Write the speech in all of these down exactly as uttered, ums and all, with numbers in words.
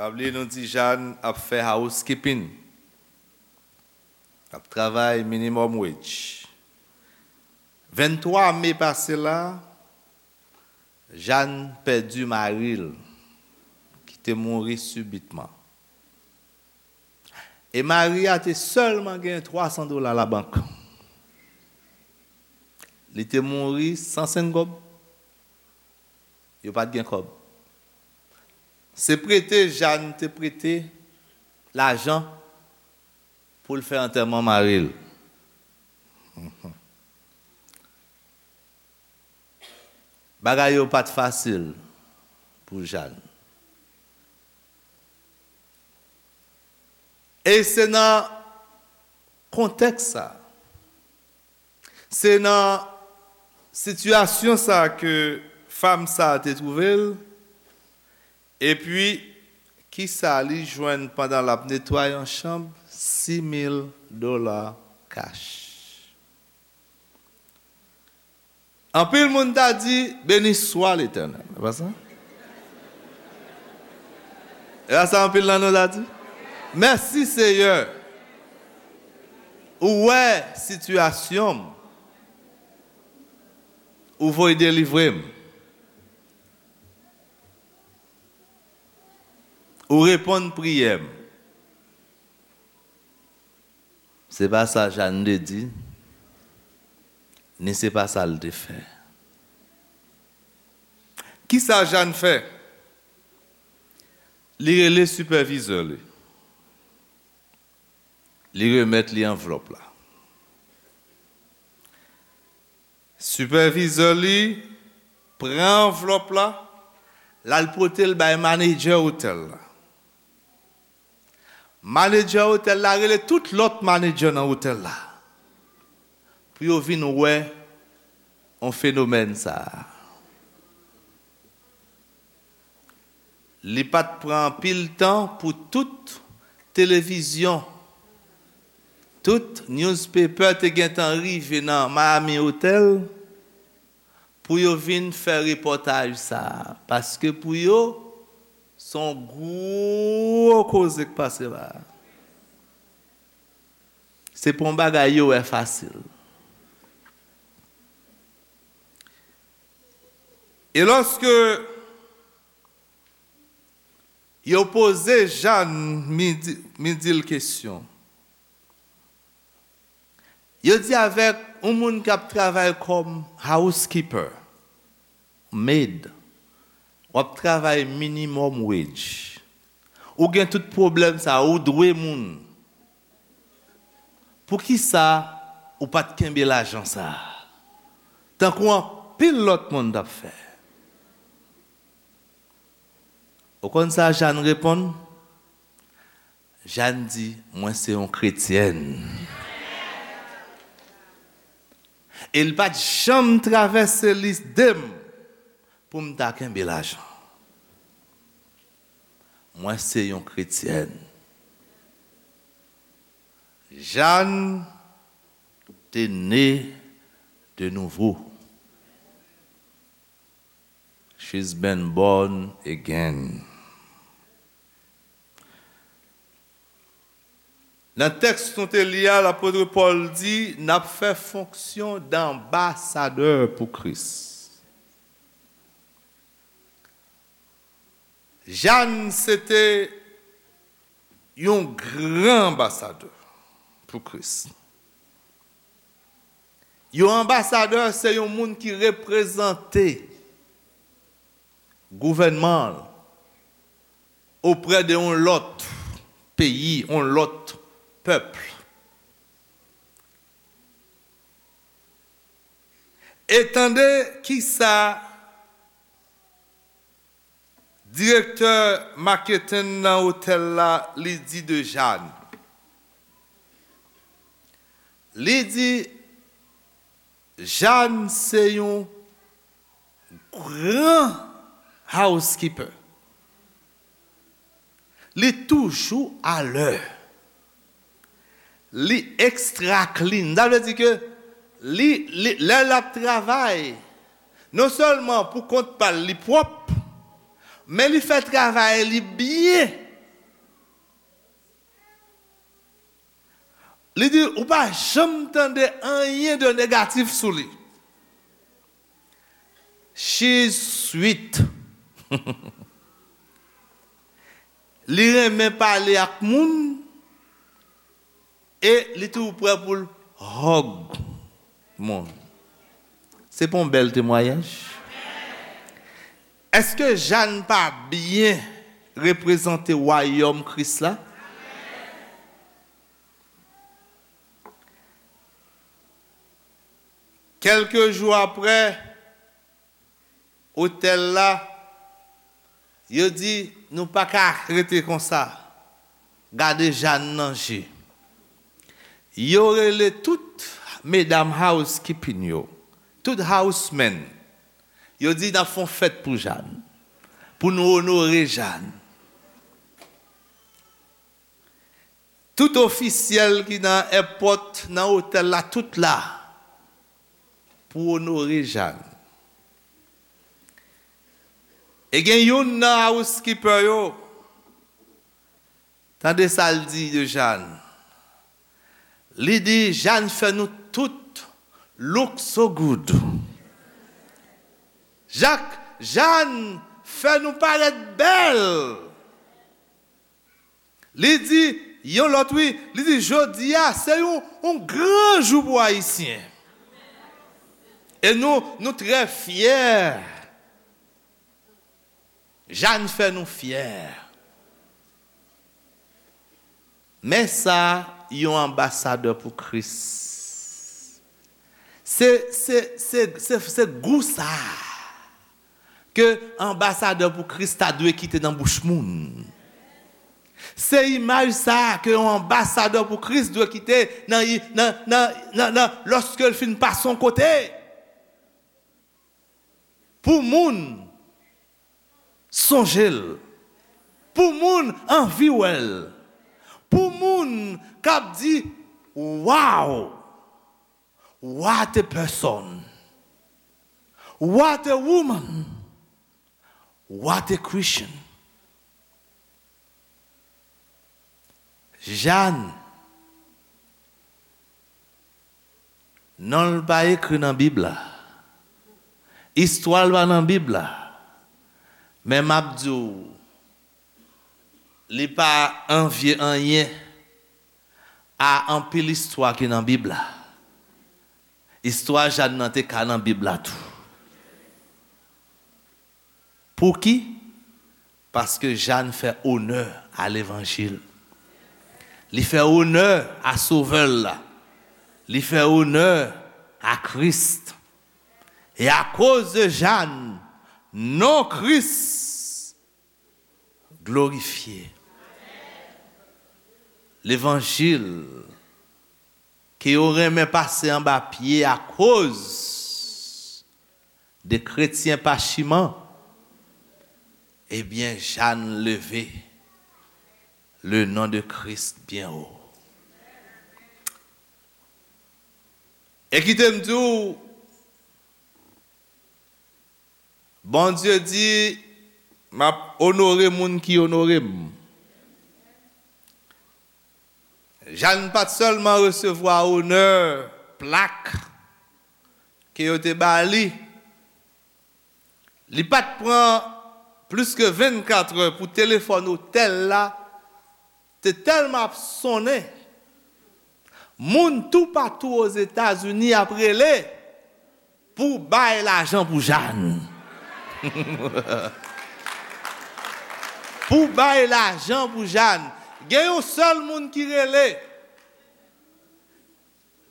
Pa bliye nou di Jàn ap fè housekeeping. Ap travay minimum wage. Venntwa me pase la, Jàn pèdi mari l, ki te mouri sibitman. E mari a te sèlman gen twa san dola labank. Li te mouri san senk kòb. Yo pa t gen kòb. Se prete Jàn te prete lajan pou l fè antèman mari l. Bagay yo pa t fasil pou Jàn. E se nan kontèks sa, se nan sitiyasyon sa ke fanm sa te twouve l. Epi, kisa li jwenn pandan l ap netwaye yon chanm? Sis mil dola kach. Anpil moun ta di, "Beni swa Letènèl." E pa sa? E pa sa anpil nan nou ta di? Mèsi, Seyè. Ou wè sitiyasyon m. Ou voye delivre m. Ou reponn priyè m. Se pa sa Jàn te di, ni se pa sa l te fè. Kisa Jàn fè? Li rele sipèvizè li. Li remèt li anvlòp la. Sipèvizè li pran anvlòp la, l al pote l bay manedjè otèl la. Manedjè otèl la rele tout lòt manedjè nan otèl la pou yo vin wè yon fenomèn sa a. Li pa t pran anpil tan pou tout televizyon, tout newspaper te gentan rive nan Miami Hotel pou yo vin fè repòtaj sa a. Paske pou yo, se yon gwo koze k pase la a. Se pa yon bagay yo wè fasil. E lòske yo poze Jàn, mi di, mi di l kesyon. Yo di avèk yon moun k ap travay kòm housekeeper, maid, w ap travay minimum wage. Ou gen tout pwoblèm sa, ou dwe moun. Poukisa ou pa t kenbe lajan sa a? Tankou anpil lòt moun t ap fè. Ou konn sa Jàn reponn? Jàn di, "Mwen se yon kretyèn." E l pa t janm travèse lide m pou m ta kenbe lajan. Mwen se yon kretyèn. Jàn te ne de nouvo. She's been born again. Nan tèks nou te li a, lapot Pòl di, n ap fè fonksyon danbasadè pou Kris. Jàn se te yon gran anbasadè pou Kris. Yon anbasadè se yon moun ki reprezante gouvènman l oprè de yon lòt peyi, yon lòt pèp. E tande kisa direktè maketing nan otèl la, li di de Jàn. Li di, Jàn se yon gran housekeeper. Li toujou alè. Li extra clean. Sa vle di ke li, li, lè l ap travay, non sèlman pou kont pa l, li pwòp, men li fè travay li byen. Li di, ou pa janm tande anyen de negatif sou li. She's sweet. Li renmen pale ak moun e li toujou prè pou l hug moun. Se pa yon bèl temwayaj? Èske Jàn pa byen reprezante wayòm Kris la? Kèlke jou apre, otèl la, yo di, nou pa ka rete konsa. Gade Jàn nan je. Yo rele tout medam housekeeping yo, tout housemen. Yo di, n ap fè yon fèt pou Jàn, pou nou onore Jàn. Tout ofisyèl ki nan èpòt, nan otèl la, tout la pou onore Jàn. E gen youn nan housekeeper yo, tande sa l di de Jàn. Li di, Jàn fè nou tout look so good. Jak, Jàn fè nou parèt bèl. Li di, yon lòt wi, li di, jodi a, se yon, yon gran jou pou Ayisyen. E nou, nou trè fyè. Jàn fè nou fyè. Men sa, yon anbasadè pou Kris. Se, se, se, se, se gou sa ke anbasadè pou Kris ta dwe kite nan bouch moun. Se imaj sa ke yon anbasadè pou Kris dwe kite nan, nan, nan, nan, nan, lòske l fin pase yon kote. Pou moun sonje l. Pou moun anvi wè l. Pou moun k ap di, wow! What a person! What a woman! What a Christian! Jàn, non l pa ekri nan Bib la. Istwa l pa nan Bib la. Men m ap di w, li pa anvye anyen a anpil istwa ki nan Bib la. Istwa Jàn nan te ka nan Bib la tou. Pouki? Paske Jàn fè onè a levanjil. Li fè onè a Sovè l la. Li fè onè a Kris. E akoz de Jàn, non Kris glorifye. Levanjil ke yo renmen pase anba pye akoz de kretyen pachiman, ebyen, Jàn leve le non de Kris byen wo. E kite m di w, Bondye di, m ap onore moun ki onore m. Jàn pa t sèlman resevwa onè, plak ke yo te ba li, li pa t pran plis ke vennkat è pou telefòn otèl la te tèlman ap sonnen. Moun toupatou Ozetazini ap rele pou bay lajan pou Jàn. Pou bay lajan pou Jàn. Gen yon sèl moun ki rele.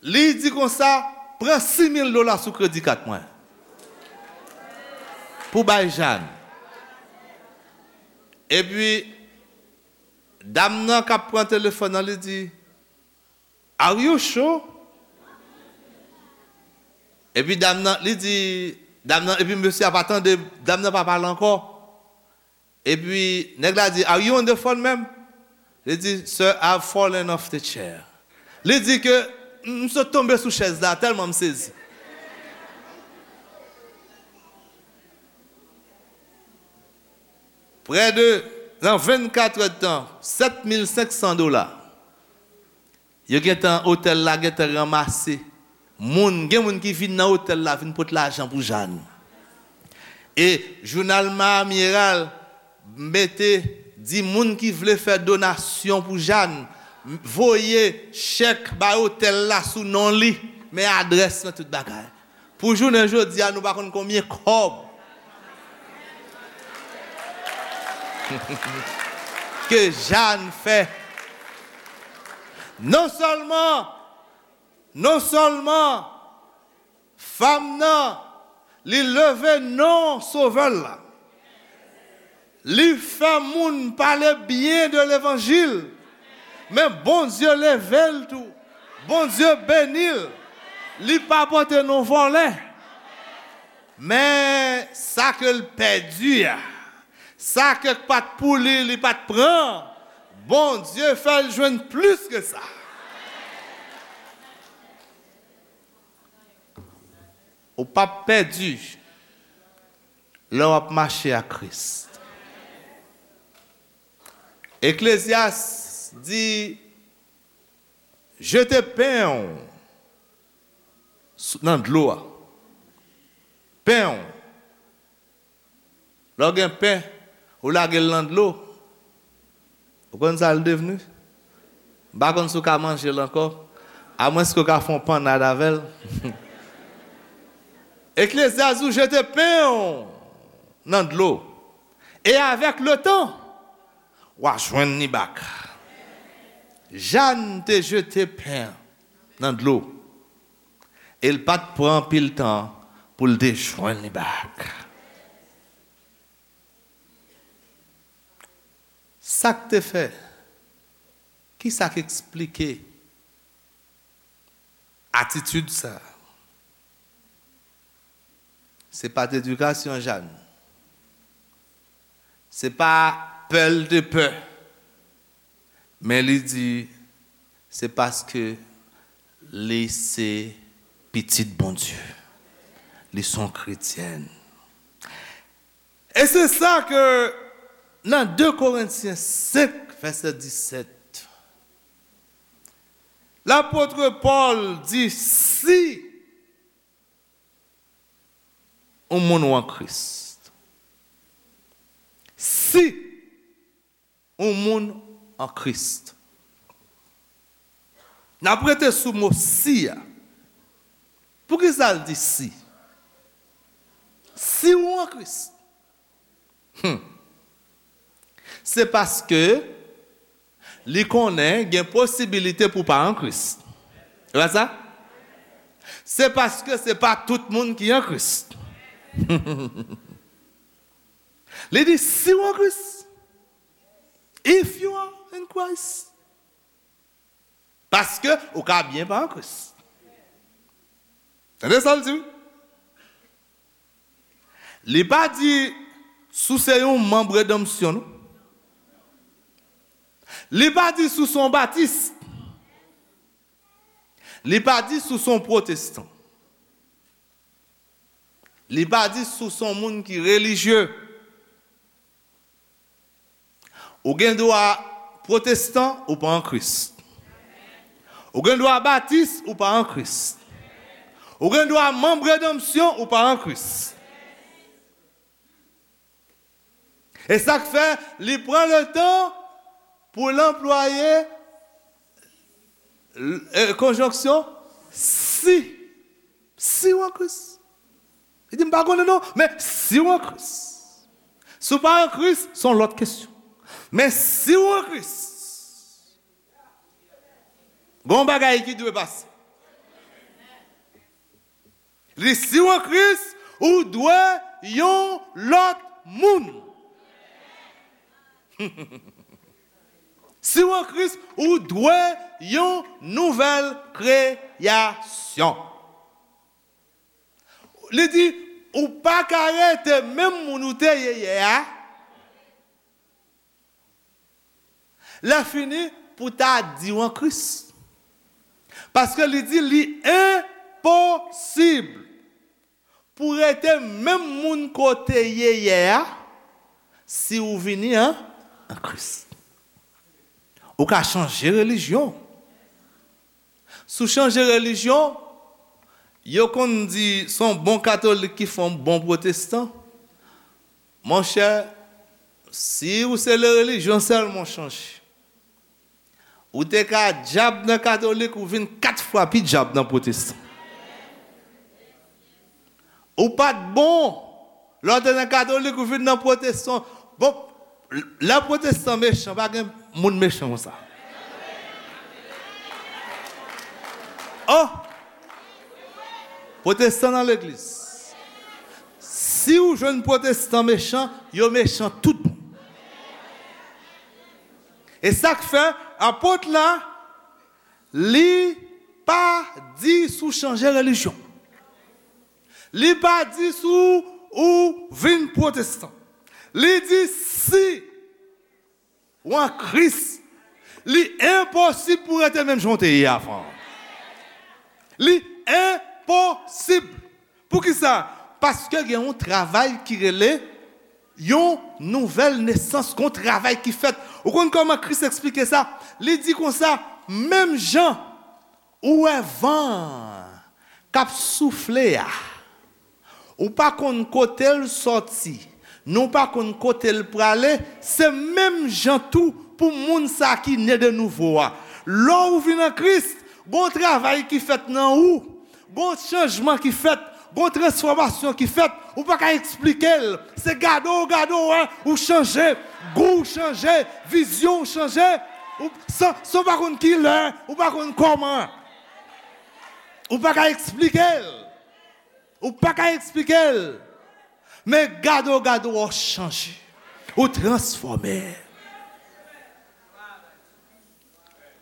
Li di konsa, pran sis mil dola sou kredi kat mwen. Pou bay Jàn. Epi, dam nan k ap pran telefòn nan, li di, "Are you sure?" Epi dam nan, li di, dam nan, epi mesye a pa tande, dam nan pa pale ankò. Epi nèg la di, "Are you on the phone, ma'am?" Li di, "Sir, I've fallen off the chair." Li di ke, "M, m sot tonbe sou chèz la, tèlman m sezi." Prè de, nan vennkat è de tan, sèt mil senk san dola. Yo gentan, otèl la gentan ranmase moun. Gen moun ki vin nan otèl la, vin pot lajan pou Jàn. E jounal Miami Herald mete, di moun ki vle fè donasyon pou Jàn, voye chèk bay otèl la sou non li, men adrès nan tout bagay. Pou jounen jodi a, nou pa konn konbyen kòb ke Jàn fè. Non sèlman, non sèlman fanm nan, li leve non Sovè l la. Li fè moun pale byen de levanjil. Men Bondye leve l tou. Bondye beni l. Li pa pote non vòlè. Men sa ke l pèdi a, sa ke pa t pou li, li pa t pran, Bondye fè l jwenn plis ke sa. Ou p ap pèdi lè w ap mache ak Kris. Eklezyas di, jete pen w sou, nan dlo a. Pen w. Lè w gen pen, ou lage l nan dlo, ou konn sa l devni? M pa konn si w ka manje l ankò, amwenske w ka fè yon pannad avè l. Eklezyas di w jete pen w nan dlo, e avèk letan, w a jwenn li bak. Jàn te jete pen nan dlo, e l pa t pran anpil tan pou l te jwenn li bak. Sa k te fè? Ki sa k eksplike atitid sa a? Se pa t edikasyon Jàn. Se pa pè l te pè. Men li di, se paske li se pitit Bondye. Li se yon kretyèn. E se sa ke nan de Korentyen senk, vèsè disèt, lapot Pòl di, si yon moun ou an Kris, si yon moun an Kris. N ap rete sou mo si a. Poukisa l di si? Si ou an Kris. Hmm. Se paske li konnen gen posibilite pou w pa an Kris. E pa sa? Se paske se pa tout moun ki an Kris. Li di, si w an Kris, if you are in Christ. Paske ou ka byen pa an Kris. Tande sa l di w? Li pa di si w se yon manm redanmsyon, non. Li pa di si w se yon batis. Li pa di si w se yon pwotestan. Li pa di si w se yon moun ki relijye. Ou gen dwa pwotestan, ou pa an Kris. Ou gen dwa batis, ou pa an Kris. Ou gen dwa manm redanmsyon, ou pa an Kris. E sa k fè li pran letan pou l anplwaye, e, konjonksyon si. Si w an Kris. Li di, m pa konnen non, men si w an Kris. Si w pa an Kris, se yon lòt kesyon. Men si w an Kris, gen yon bagay ki dwe pase. Li, si w an Kris, ou dwe yon lòt moun. Si w an Kris, ou dwe yon nouvèl kreyasyon. Li di, ou pa ka rete menm moun ou te ye yè a. Lè fini, pou ta di w an Kris. Paske li di li enposib pou rete menm moun kote ye yè a, si ou vini an, an Kris. Ou ka chanje relijyon. Si w chanje relijyon, yo konn di se yon bon katolik ki fè yon bon pwotestan. Monchè, si w se le relijyon sèlman w chanje, ou te ka dyab nan katolik, ou vin kat fwa pi dyab nan pwotestan. Ou pa t bon. Lè w te nan katolik, ou vin nan pwotestan. Bon, lè pwotestan mechan, pa gen moun mechan konsa. Oh! Pwotestan nan legliz. Si w jwenn pwotestan mechan, yo mechan tout bon. E sa k fè apot la, li pa di si w chanje relijyon. Li pa di si w, ou vin pwotestan. Li di si w an Kris, li enposib pou w rete menm jan w te ye avan. Li enposib. Poukisa? Paske gen yon travay ki rele yon nouvèl nesans, gen yon travay ki fèt. Ou konn kòman Kris eksplike sa? Li di konsa, menm jan ou wè van k ap soufle a, ou pa konn kote l sòti, ni w pa konn kote l prale, se menm jan tou pou moun sa ki ne de nouvo a. Lè w vin an Kris, gon travay ki fèt nan ou, gon chanjman ki fèt, gon transfòmasyon ki fèt, ou pa ka eksplike l. Se gade w gade w wè, ou chanje, gou w chanje, vizyon w chanje, ou, san, san w pa konn ki lè, ou pa konn kòman. Ou pa ka eksplike l. Ou pa ka eksplike l. Men gade w gade w, ou chanje. Ou transfòme.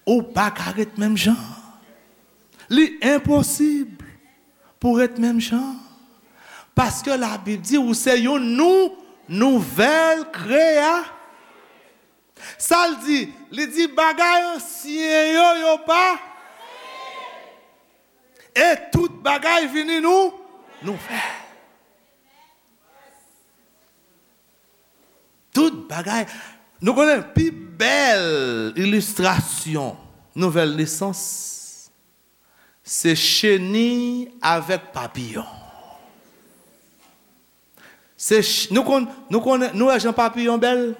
Ou pa ka ret menm jan. Li enposib pou ret menm jan. Paske Labib di ou se yon nou, nouvèl kreya. Sa l di? Li di bagay ansyen yo, yo pa. E tout bagay vini nou, nouvèl. Tout bagay. Nou konnen pi bèl ilistrasyon nouvèl nesans, se cheni avèk papiyon. Se ch-, nou konn, nou konnen, nou wè jan papiyon bèl?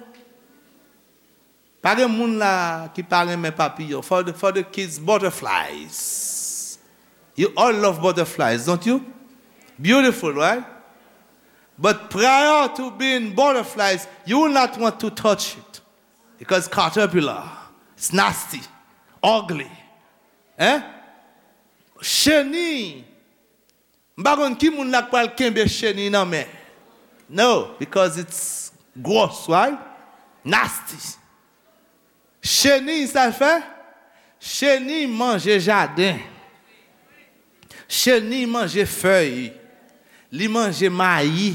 Pa gen moun la ki pa renmen papiyon. For the, for the kids, butterflies. You all love butterflies, don't you? Beautiful, right? But prior to being butterflies, you will not want to touch it. Because caterpillar, it's nasty, ugly. Hein? Cheni. M pa konn ki moun la k pral kenbe cheni nan men. No, because it's gross, right? Nasty. Cheni, sa l fè? Cheni manje jaden. Cheni manje fèy. Li manje mayi.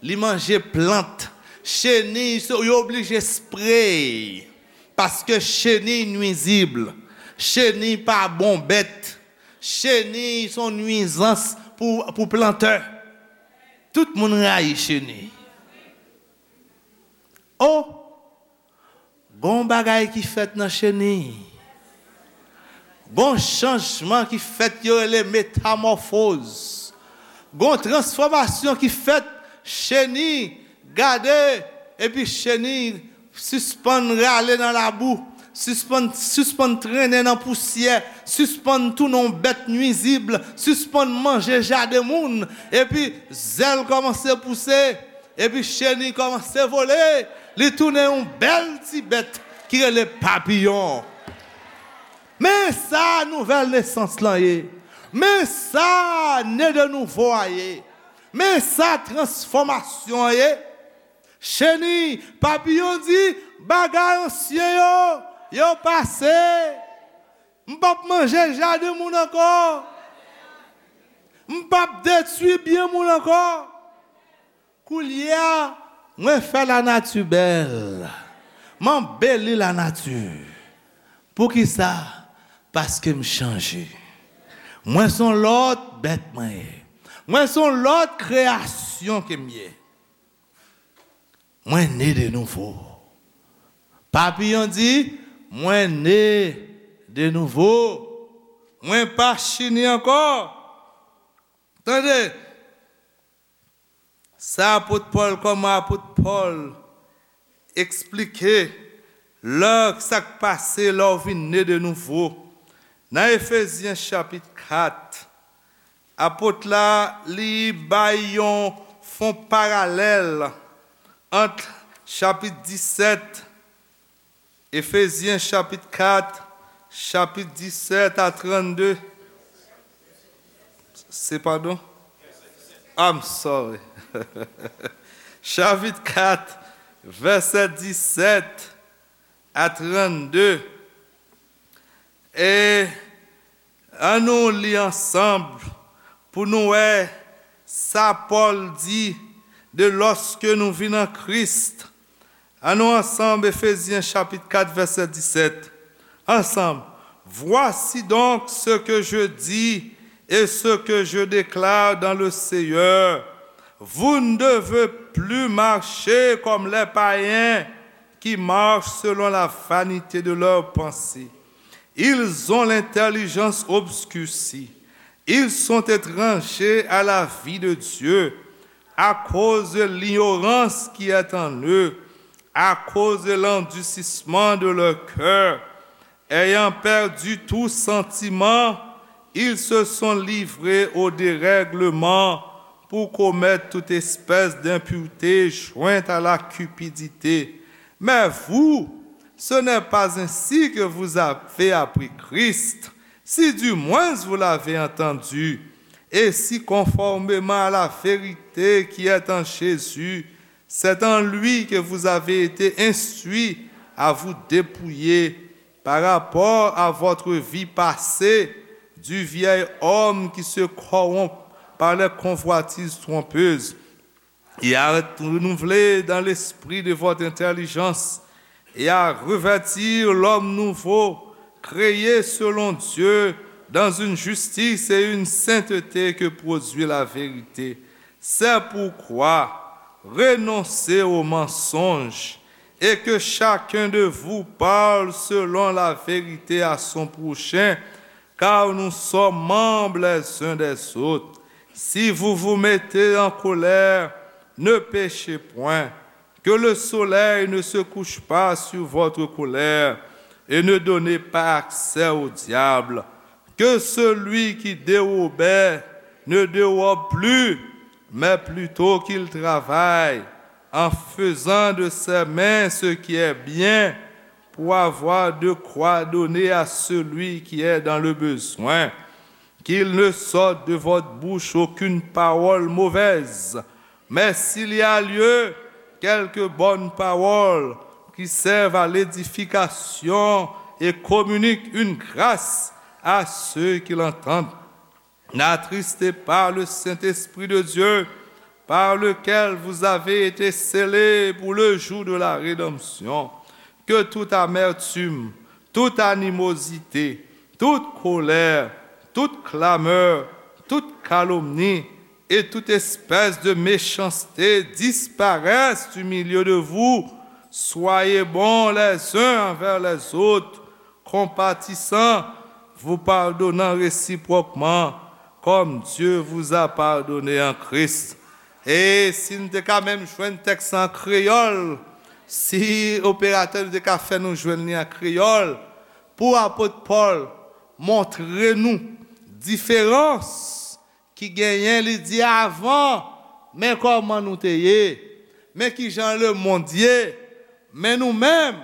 Li manje plant. Cheni, so, yo oblije spray. Paske cheni nwizib. Cheni pa bon bèt. Cheni se yon nwizans pou, pou plantè. Tout moun rayi cheni. Oh! Gon bagay ki fèt nan cheni. Gon chanjman ki fèt, yo rele metamòfoz. Gon transfòmasyon ki fèt, cheni, gade, epi cheni sispann rale nan labou, sispann, sispann trennen nan pousyè, sispann tounen yon bèt nwizib, sispann manje jaden moun, epi zèl kòmanse pouse, epi cheni kòmanse vole, li tounen yon bèl ti bèt ki rele papiyon. Men sa nouvèl nesans lan ye. Men sa ne de nouvo a ye. Men sa transfòmasyon an ye. Cheni, papiyon di, bagay ansyen yo, yo pase. M p ap manje jaden moun ankò. M p ap detwi byen moun ankò. Koulye a, mwen fè lanati bèl. M anbeli lanati. Poukisa? Paske m chanje. Mwen se yon lòt bèt mwen ye. Mwen se yon lòt kreyasyon ke m ye. Mwen ne de nouvo. Papiyon di, mwen ne de nouvo. Mwen pa chini ankò. Tande, sa apot Pòl, kòman apot Pòl eksplike lè sa k pase lè w vin ne de nouvo. Nan Efezyen chapit kat, apot la, li bay yon, fon paralèl ant chapit disèt, Efezyen chapit kat, chapit disèt a trannde. Se, padon? I'm sorry. Chapit kat, vèsè disèt a trannde. E ann nou li ansanm pou nou wè sa Pòl di de lòske nou vin an Kris. Ann nou ansanm, Efezyen chapit kat, vèsè disèt. Ansanm. Voici donc ce que je dis et ce que je déclare dans le Seigneur. Vous ne devez plus marcher comme les païens qui marchent selon la vanité de leurs pensées. Ils ont l'intelligence obscurcie. Ils sont étrangers à la vie de Dieu à cause de l'ignorance qui est en eux, à cause de l'endurcissement de leur cœur. Ayant perdu tout sentiment, ils se sont livrés au dérèglement pour commettre toute espèce d'impureté jointe à la cupidité. Mais vous, ce n'est pas ainsi que vous avez appris Christ, si du moins vous l'avez entendu, et si conformément à la vérité qui est en Jésus, c'est en lui que vous avez été instruits à vous dépouiller par rapport à votre vie passée du vieil homme qui se corrompt par les convoitises trompeuses, et à être renouvelé dans l'esprit de votre intelligence, et à revêtir l'homme nouveau, créé selon Dieu, dans une justice et une sainteté que produit la vérité. C'est pourquoi renoncez aux mensonges, et que chacun de vous parle selon la vérité à son prochain, car nous sommes membres les uns des autres. Si vous vous mettez en colère, ne péchez point. Que le soleil ne se couche pas sur votre colère, et ne donnez pas accès au diable. Que celui qui dérobait ne dérobe plus, mais plutôt qu'il travaille, en faisant de ses mains ce qui est bien, pour avoir de quoi donner à celui qui est dans le besoin. Qu'il ne sorte de votre bouche aucune parole mauvaise, mais s'il y a lieu, quelques bonnes paroles qui servent à l'édification et communiquent une grâce à ceux qui l'entendent. N'attristez pas le Saint-Esprit de Dieu, par lequel vous avez été scellés pour le jour de la rédemption. Que toute amertume, toute animosité, toute colère, toute clameur, toute calomnie et toute espèce de méchanceté disparaissent du milieu de vous. Soyez bons les uns envers les autres, compatissants, vous pardonnant réciproquement, comme Dieu vous a pardonné en Christ. E si n te ka menm jwenn tèks an kreyòl, si operatè nou te ka fè nou jwenn li an kreyòl, pou apot Pòl montre nou diferans ki genyen, li di, avan, men kòman nou te ye, men kijan lemonn ye, men nou menm,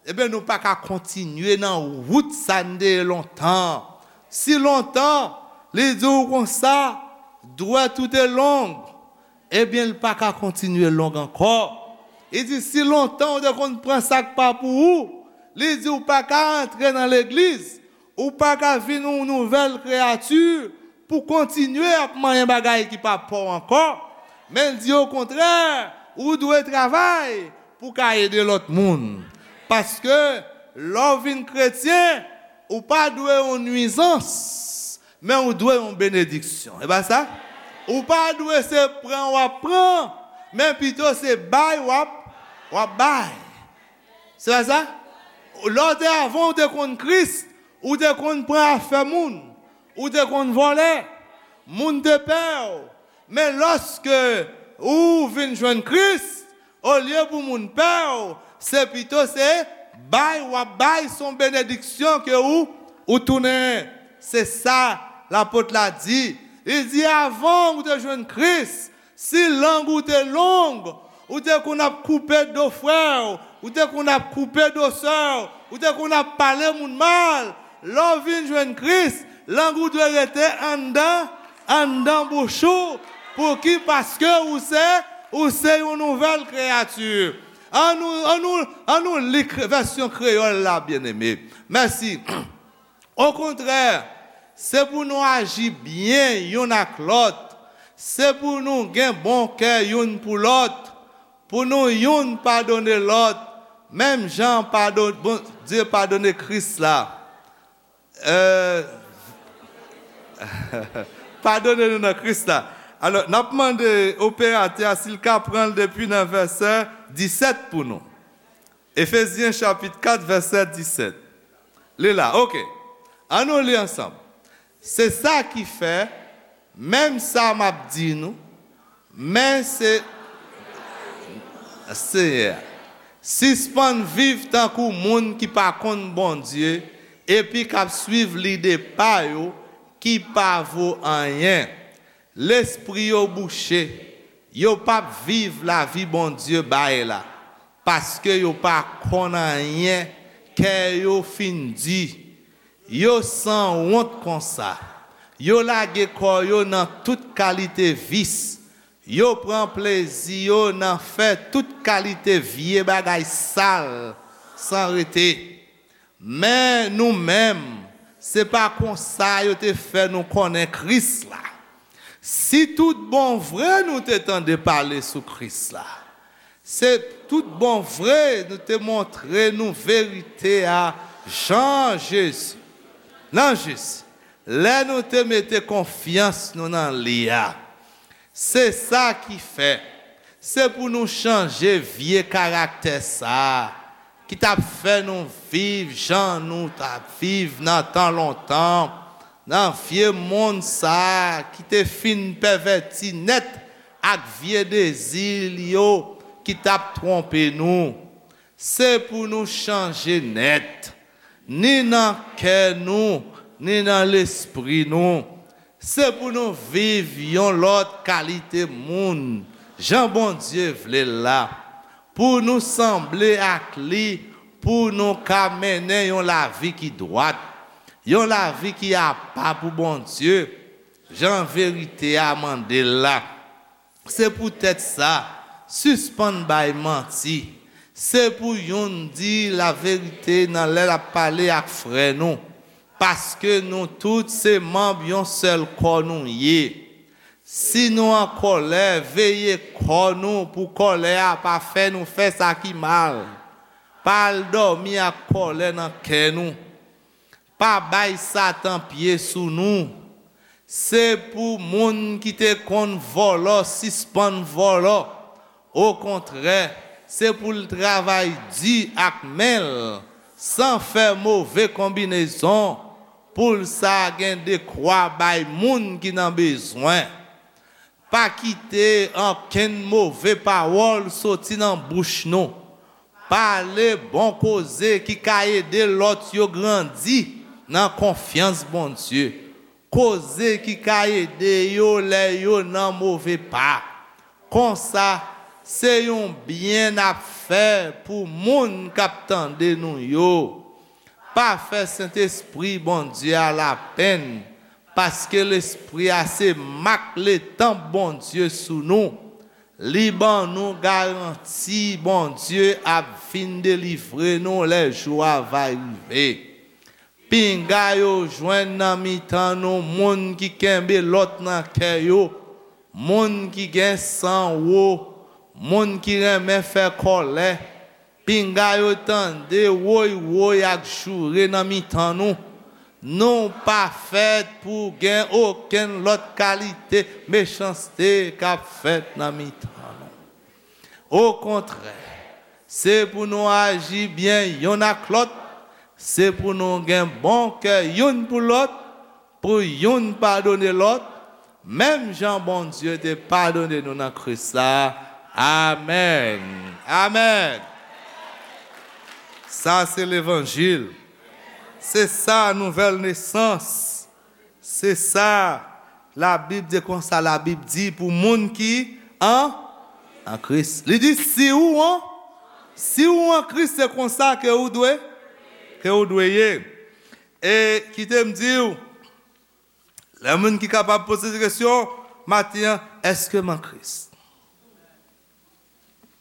ebyen, nou pa ka kontinye nan wout sa n te ye lontan. Si lontan, li di w konsa, dwèt ou te long, ebyen, l pa ka kontinye long ankò. Li di, si lontan ou te konn pran sa k pa pou ou, li di, ou pa ka antre nan legliz, ou pa ka vin yon nouvèl kreyati pou kontinye ap manyen bagay ki pa pa w ankò. Men l di, okontrè, ou dwe travay pou w ka ede lòt moun. Paske, lè w vin kretyen, ou pa dwe yon nwizans, men ou dwe yon benediksyon. E pa sa? Ou pa dwe se pran w ap pran, men pito se bay w ap, w ap bay. Se pa sa? Lè w te, avan w te konn Kris, ou te konn pran afè moun. Ou te konn vòlè, moun te pè w. Men lòske ou vin jwenn Kris, olye pou moun pè w, se pito se bay w ap bay, se yon benediksyon ke ou, ou tounen. Se sa lapot la di. Li di, avan ou te jwenn Kris, si lang ou te long, ou te konn ap koupe do frè w, ou te konn ap koupe do sè w, ou te konn ap pale moun mal. Lè w vin jwenn Kris, lang ou dwe rete anndan, anndan bouch ou. Pouki? Paske ou se, ou se yon nouvèl kreyati. Annou, annou, annou li kre-, vèsyon kreyòl la, byeneme. Mèsi. Okontrè, se pou nou aji byen youn ak lòt. Se pou nou gen bon kè youn pou lòt, pou nou youn padone lòt, menm jan padon-, Bondye padone Kris la. Euh, padone nou nan Kris la. Alò, n ap mande operatè a si l ka pran l depi nan vèsè disèt pou nou. Efezyen chapit kat, vèsè disèt. Li la, oke. Annou li ansanm. Se sa ki fè, menm sa m ap di nou, men se Seyè a. Sispann viv tankou moun ki pa konn Bondye epi k ap swiv lide pa yo ki pa vo anyen. Lespri yo bouche, yo p ap viv lavi Bondye bay la, paske yo pa konn anyen, kè yo fin di. Yo sanwont konsa. Yo lage kò yo nan tout kalite vis. Yo pran plezi yo nan fè tout kalite vye bagay sal san rete. Men nou menm, se pa konsa yo te fè nou konnen Kris la. Si tout bon vre nou te tande pale sou Kris la, se tout bon vre nou te montre nou verite a jan Jezi, nan Jezi, lè nou te mete konfyans nou nan li a. Se sa ki fè, se pou nou chanje vye karaktè sa a, ki t ap fè nou viv jan nou t ap viv nan tan lontan, nan vye monn sa a ki te fin pèvèti nèt ak vye dezi l yo ki t ap twonpe nou. Se pou nou chanje nèt, ni nan kè nou, ni nan lespri nou. Se pou nou viv yon lòt kalite moun, jan Bondye vle l la, pou nou sanble ak li, pou nou ka mennen yon lavi ki dwat, yon lavi ki apa pou Bondye, jan verite a mande l la. Se poutèt sa, sispann bay manti. Se pou youn di laverite nan lè l ap pale ak frè nou, paske nou tout se manm yon sèl kò nou ye. Si nou an kòlè, veye kò nou pou kòlè a pa fè nou fè sa ki mal. Pa al dòmi ak kòlè nan kè nou. Pa bay Satan pye sou nou. Se pou moun ki te konn vòlò sispann vòlò. Okontrè, se pou l travay di ak men l, san fè move konbinezon, pou l sa gen dekwa bay moun ki nan bezwen. Pa kite okenn move pawòl soti nan bouch nou. Pale bon koze ki ka ede lòt yo grandi nan konfyans Bondye. Koze ki ka ede yo lè yo nan move pa. Konsa, se yon byen n ap fè pou moun k ap tande nou yo. Pa fè Sentespri Bondye a lapenn, paske Lespri a se mak letanp Bondye sou nou. Li ban nou garanti Bondye ap vin delivre nou lè jou a va rive. Pinga yo jwenn nan mitan nou moun ki kenbe lòt nan kè yo, moun ki gen san wo, moun ki renmen fè kòlè. Pinga yo tande woy woy ak joure nan mitan nou. Nou pa fèt pou gen okenn lòt kalite mechanste k ap fèt nan mitan nou. Okontrè, se pou nou aji byen youn ak lòt, se pou nou gen bon kè youn pou lòt, pou youn padone lòt, menm jan Bondye te padone nou nan Kris la. Amèn. Amèn. Sa se levanjil. Se sa nouvèl nesans. Se sa Labib di konsa, Labib di pou moun ki an, an Kris. Li di si ou an, si ou an Kris, se konsa ke ou dwe, ke ou dwe ye. E kite m di w, lè moun ki kapab poze kesyon maten an, èske m an Kris?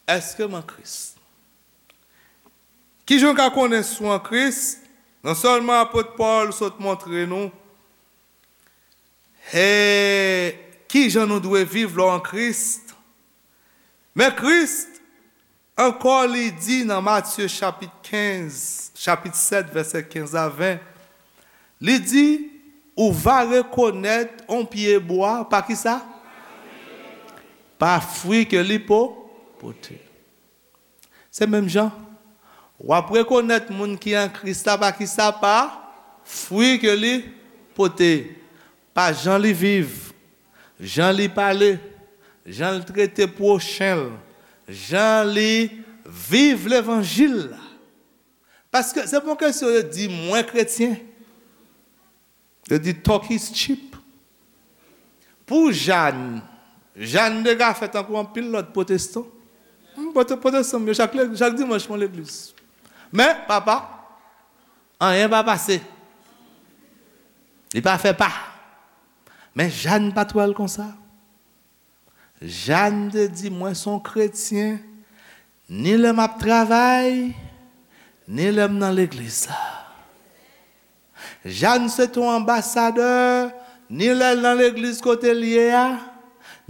Èske m an Kris? Kijan w ka konnen si w an Kris? Non sèlman apot Pòl sot montre nou e kijan nou dwe viv lè w an Kris, men Kris ankò li di nan Matye chapit kenz, chapit sèt, vèsè kenz a ven, li di, ou va rekonèt on pye bwa pa ki sa? Pa fwi ke li po, pote. Se menm jan. W ap rekonèt moun ki an Kris la pa ki sa? Pa fwi ke li pote. Pa jan li viv, jan li pale, jan l trete pwochen l, jan li viv levanjil la. Paske se pa yon kesyon yo di mwen kretyen. Yo di talk is cheap. Pou Jàn, Jàn dega fè tankou anpil lòt pwotestan. Hmm, pwote-, pwotestan, yo chak, le-, chak dimanch mwen legliz. Men, papa, anyen pa pase. Li pa fè pa. Men Jàn pa t wè l konsa. Jàn te di, mwen se yon kretyen, ni lè m ap travay, ni lè m nan legliz la. Jàn se te yon anbasadè, ni lè l nan legliz kote l ye a,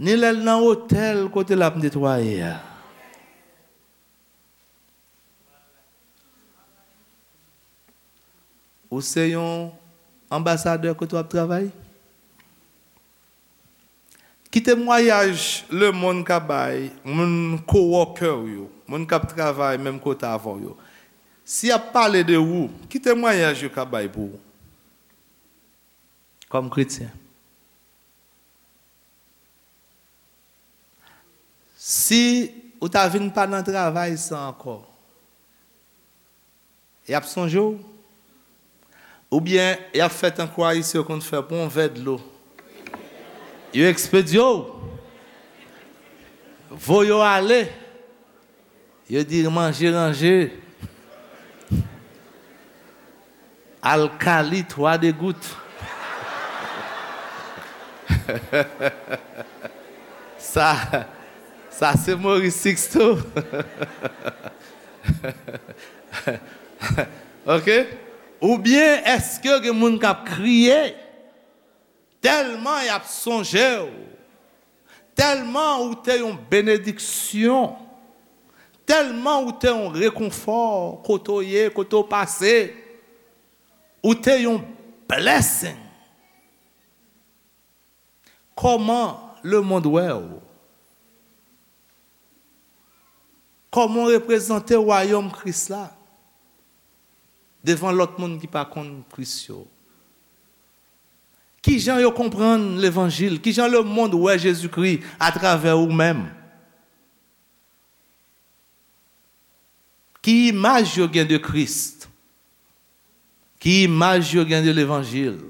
ni lè l nan otèl kote l ap netwaye a. Ou se yon anbasadè kote w ap travay? Ki temwayaj lemonn ka bay moun coworker w yo, moun k ap travay menm kote avè w yo? Si y ap pale de ou, ki temwayaj yo ka bay pou ou kòm kretyen? Si ou ta vin pa nan travay sa ankò, y ap sonje w? Oubyen y ap fè tankou Ayisyen yo konn fè, pran yon vè dlo. Yo ekspedye w. Voye w ale. Yo di manje ranje. Alkali twa degout. Sa, sa se Maurice Sixto. Ok? Oubyen èske gen moun k ap kriye tèlman y ap sonje w, tèlman ou te yon benediksyon, tèlman ou te yon rekonfò kote w ye, kote w pase, ou te yon blessing. Kòman lemonn wè w? Kòman w reprezante wayòm Kris la devan lòt moun ki pa konn Kris yo? Kijan yo konprann levanjil? Kijan lemonn wè Jezikri atravè ou menm? Ki imaj yo gen de Kris? Ki imaj yo gen de levanjil?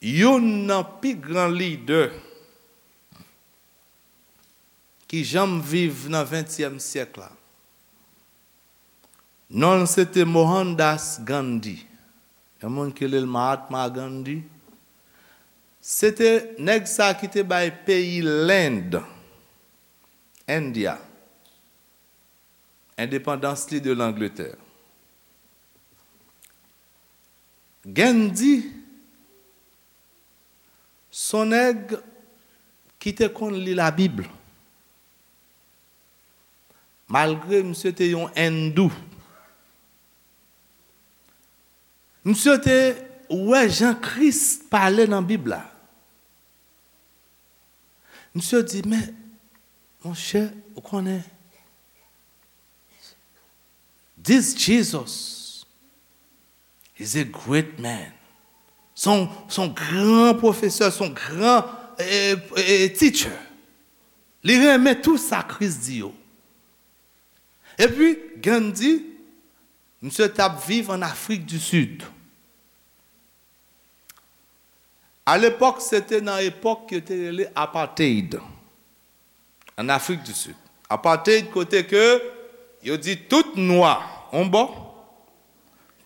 Youn nan pi gran lidè ki janm viv nan ventyèm syèk la, non l se te Mohandas Gandhi, yon moun ki rele l Mahatma Gandhi. Se te nèg sa ki te bay peyi Lend, India, endepandans li de Langletè. Gandhi se yon nèg ki te konn li Labib. Malgre misye te yon endou, misye te wè jan Kris pale nan Bib la. Misye di, men, monchè, ou konnen, This Jesus is a great man. Se yon, se yon gran pwofesè, se yon gran eh, eh, teacher. Li renmen tou sa Kris di yo. Epi, Gandhi, misye t ap viv an Afrik di Sid. Alepòk, se te nan epòk yo te rele apartheid an Afrik di Sid. Apartheid kote ke yo di tout nwa on bò,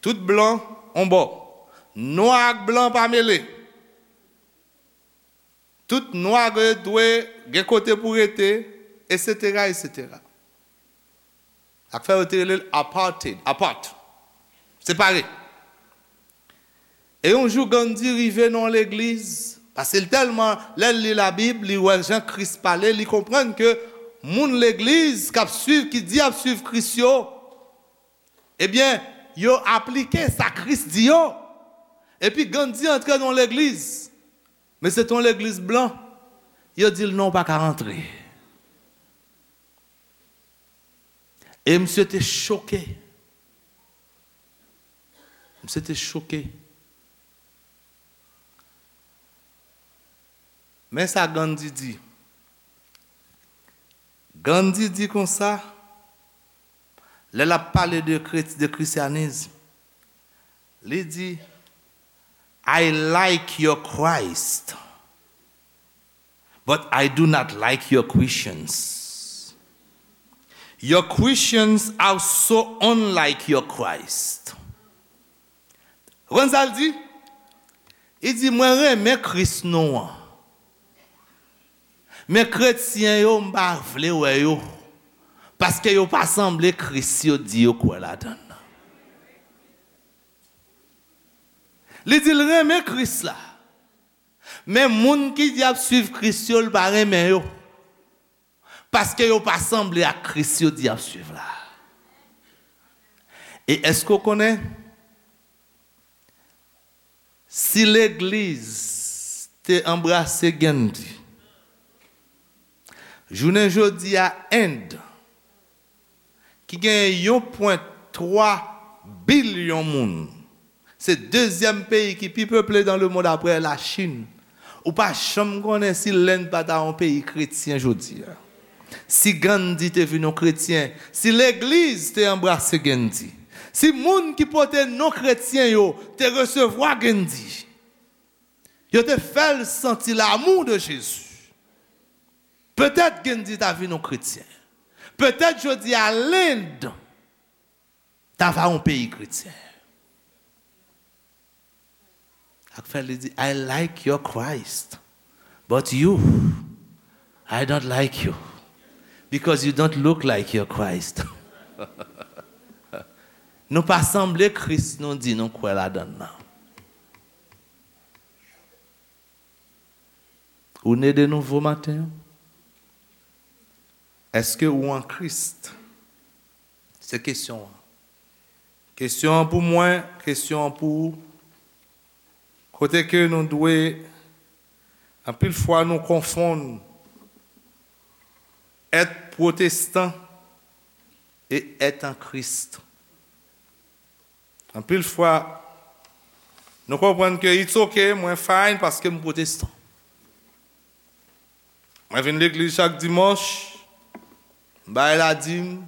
tout blan on bò. Nwa ak blan pa mele. Tout nwa dwe gen kote pou rete, etsetera, etsetera. Sa k fè yo te rele l apartheid, apart, separe. E yon jou Gandhi rive nan yon legliz, paske l tèlman, lè l li Labib, li wè jan Kris pale, li konprann ke moun legliz k ap swiv, ki di y ap swiv Kris yo, ebyen, yo aplike sa Kris di yo. Epi Gandhi antre nan yon legliz, men se te yon legliz blan. Yo di l non, ou pa ka rantre. E misye te choke. Misye te choke. Men sa Gandhi di. Gandhi di konsa, lè l ap pale de, kret- de kristyanis, li di, I like your Christ, but I do not like your Christians. Your Christians are so unlike your Christ. Ou konn sa l di? Li di, mwen renmen Kris nou an. Men kretyen yo, m pa vle wè yo. Paske yo pa sanble Kris yo di yo kwè ladan l nan. Li di l renmen Kris la. Men moun ki di y ap swiv Kris yo, l pa renmen yo. Paske yo pa sanble ak Kris yo di y ap swiv la. E èske w konnen si legliz te anbrase Gandhi, jounen jodi a End, ki gen yon pwen twa bilyon moun, se dezyèm peyi ki pi peple dans le monde apre Lachin. Ou pa janm konnen si Lenn pa ta yon peyi kretyen jodi a. Si Gandhi te vin yon kretyen, si legliz te anbrase Gandhi, si moun ki pote non kretyen yo te resevwa Gandhi, yo te fè l santi l'amour de Jésus, petèt Gandhi ta vin yon kretyen. Petèt jodi a Lenn ta va yon peyi kretyen. Sa k fè li di, I like your Christ, but you, I don't like you, because you don't look like your Christ. Nou pa sanble Kris nou di nou kwè ladan l nan. Ou ne de nouvo maten an? Èske ou an Kris? Se kesyon an. Kesyon an pou mwen, kesyon an pou ou. Kote ke nou dwe, anpil fwa nou konfonn èt pwotestan e èt an Kris. Anpil fwa, nou konprann ke it's ok, mwen fine paske m pwotestan. Mwen vin legliz chak dimanch, m bay ladim,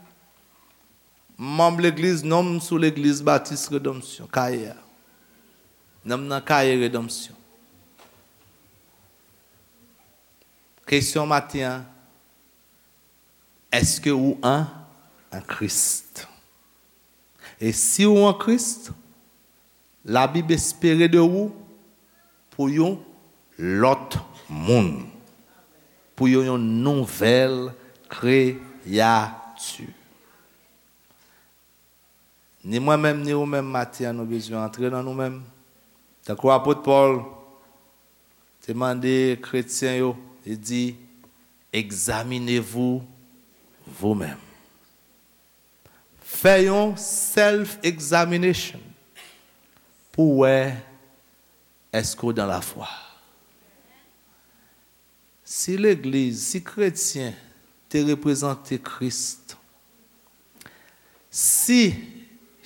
m manm legliz, non m sou legliz Batis Redanmsyon, Kaye a. Non m nan Kaye Redanmsyon. Kesyon maten an, èske ou an, an Kris? E si ou an Kris, Labib espere de ou pou yon lòt moun, pou yon, yon nouvèl kreyati. Ni mwen menm, ni ou menm, maten an, nou bezwen antre nan nou menm. Tankou apot Pòl te mande kretyen yo, li di, examinez-vous vous-même. Fè yon self-examination pou wè èske w dan lafwa. Si legliz, si kretyen te reprezante Kris, si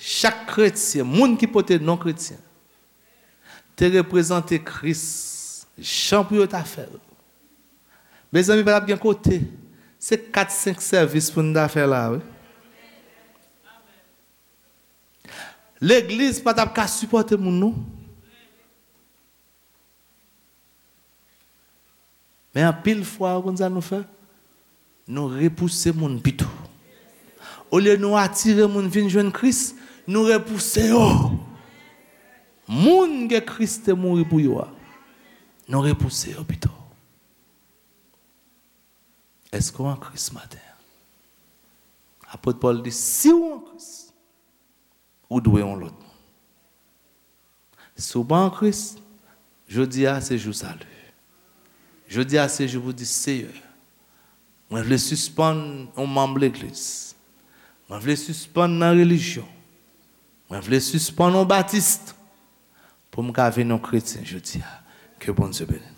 Chak kretyen, moun ki pote non kretyen, te reprezante Kris jan pou yo ta fè l. Mezanmi, pa t ap gen kote. Se kat, senk sèvis pou n ta fè la, wi. Legliz pa t ap ka sipòte moun, non. Men anpil fwa, ou konn sa nou fè? Nou repouse moun pito. Olye nou atire moun vin jwenn Kris, nou repouse yo. Moun ke Kris te mouri pou yo a, nou repouse yo pito. Èske w an Kris maten an? Apot Pòl di, si w an Kris, ou dwe yon lòt moun. Si w pa an Kris, jodi a se jou sali. Jodi a se jou pou di, Seyè, mwen vle sispann yon manm legliz. Mwen vle sispann nan relijyon. Mwen vle sispann yon batis pou m ka vin yon kretyen jodi a. Ke Bondye beni.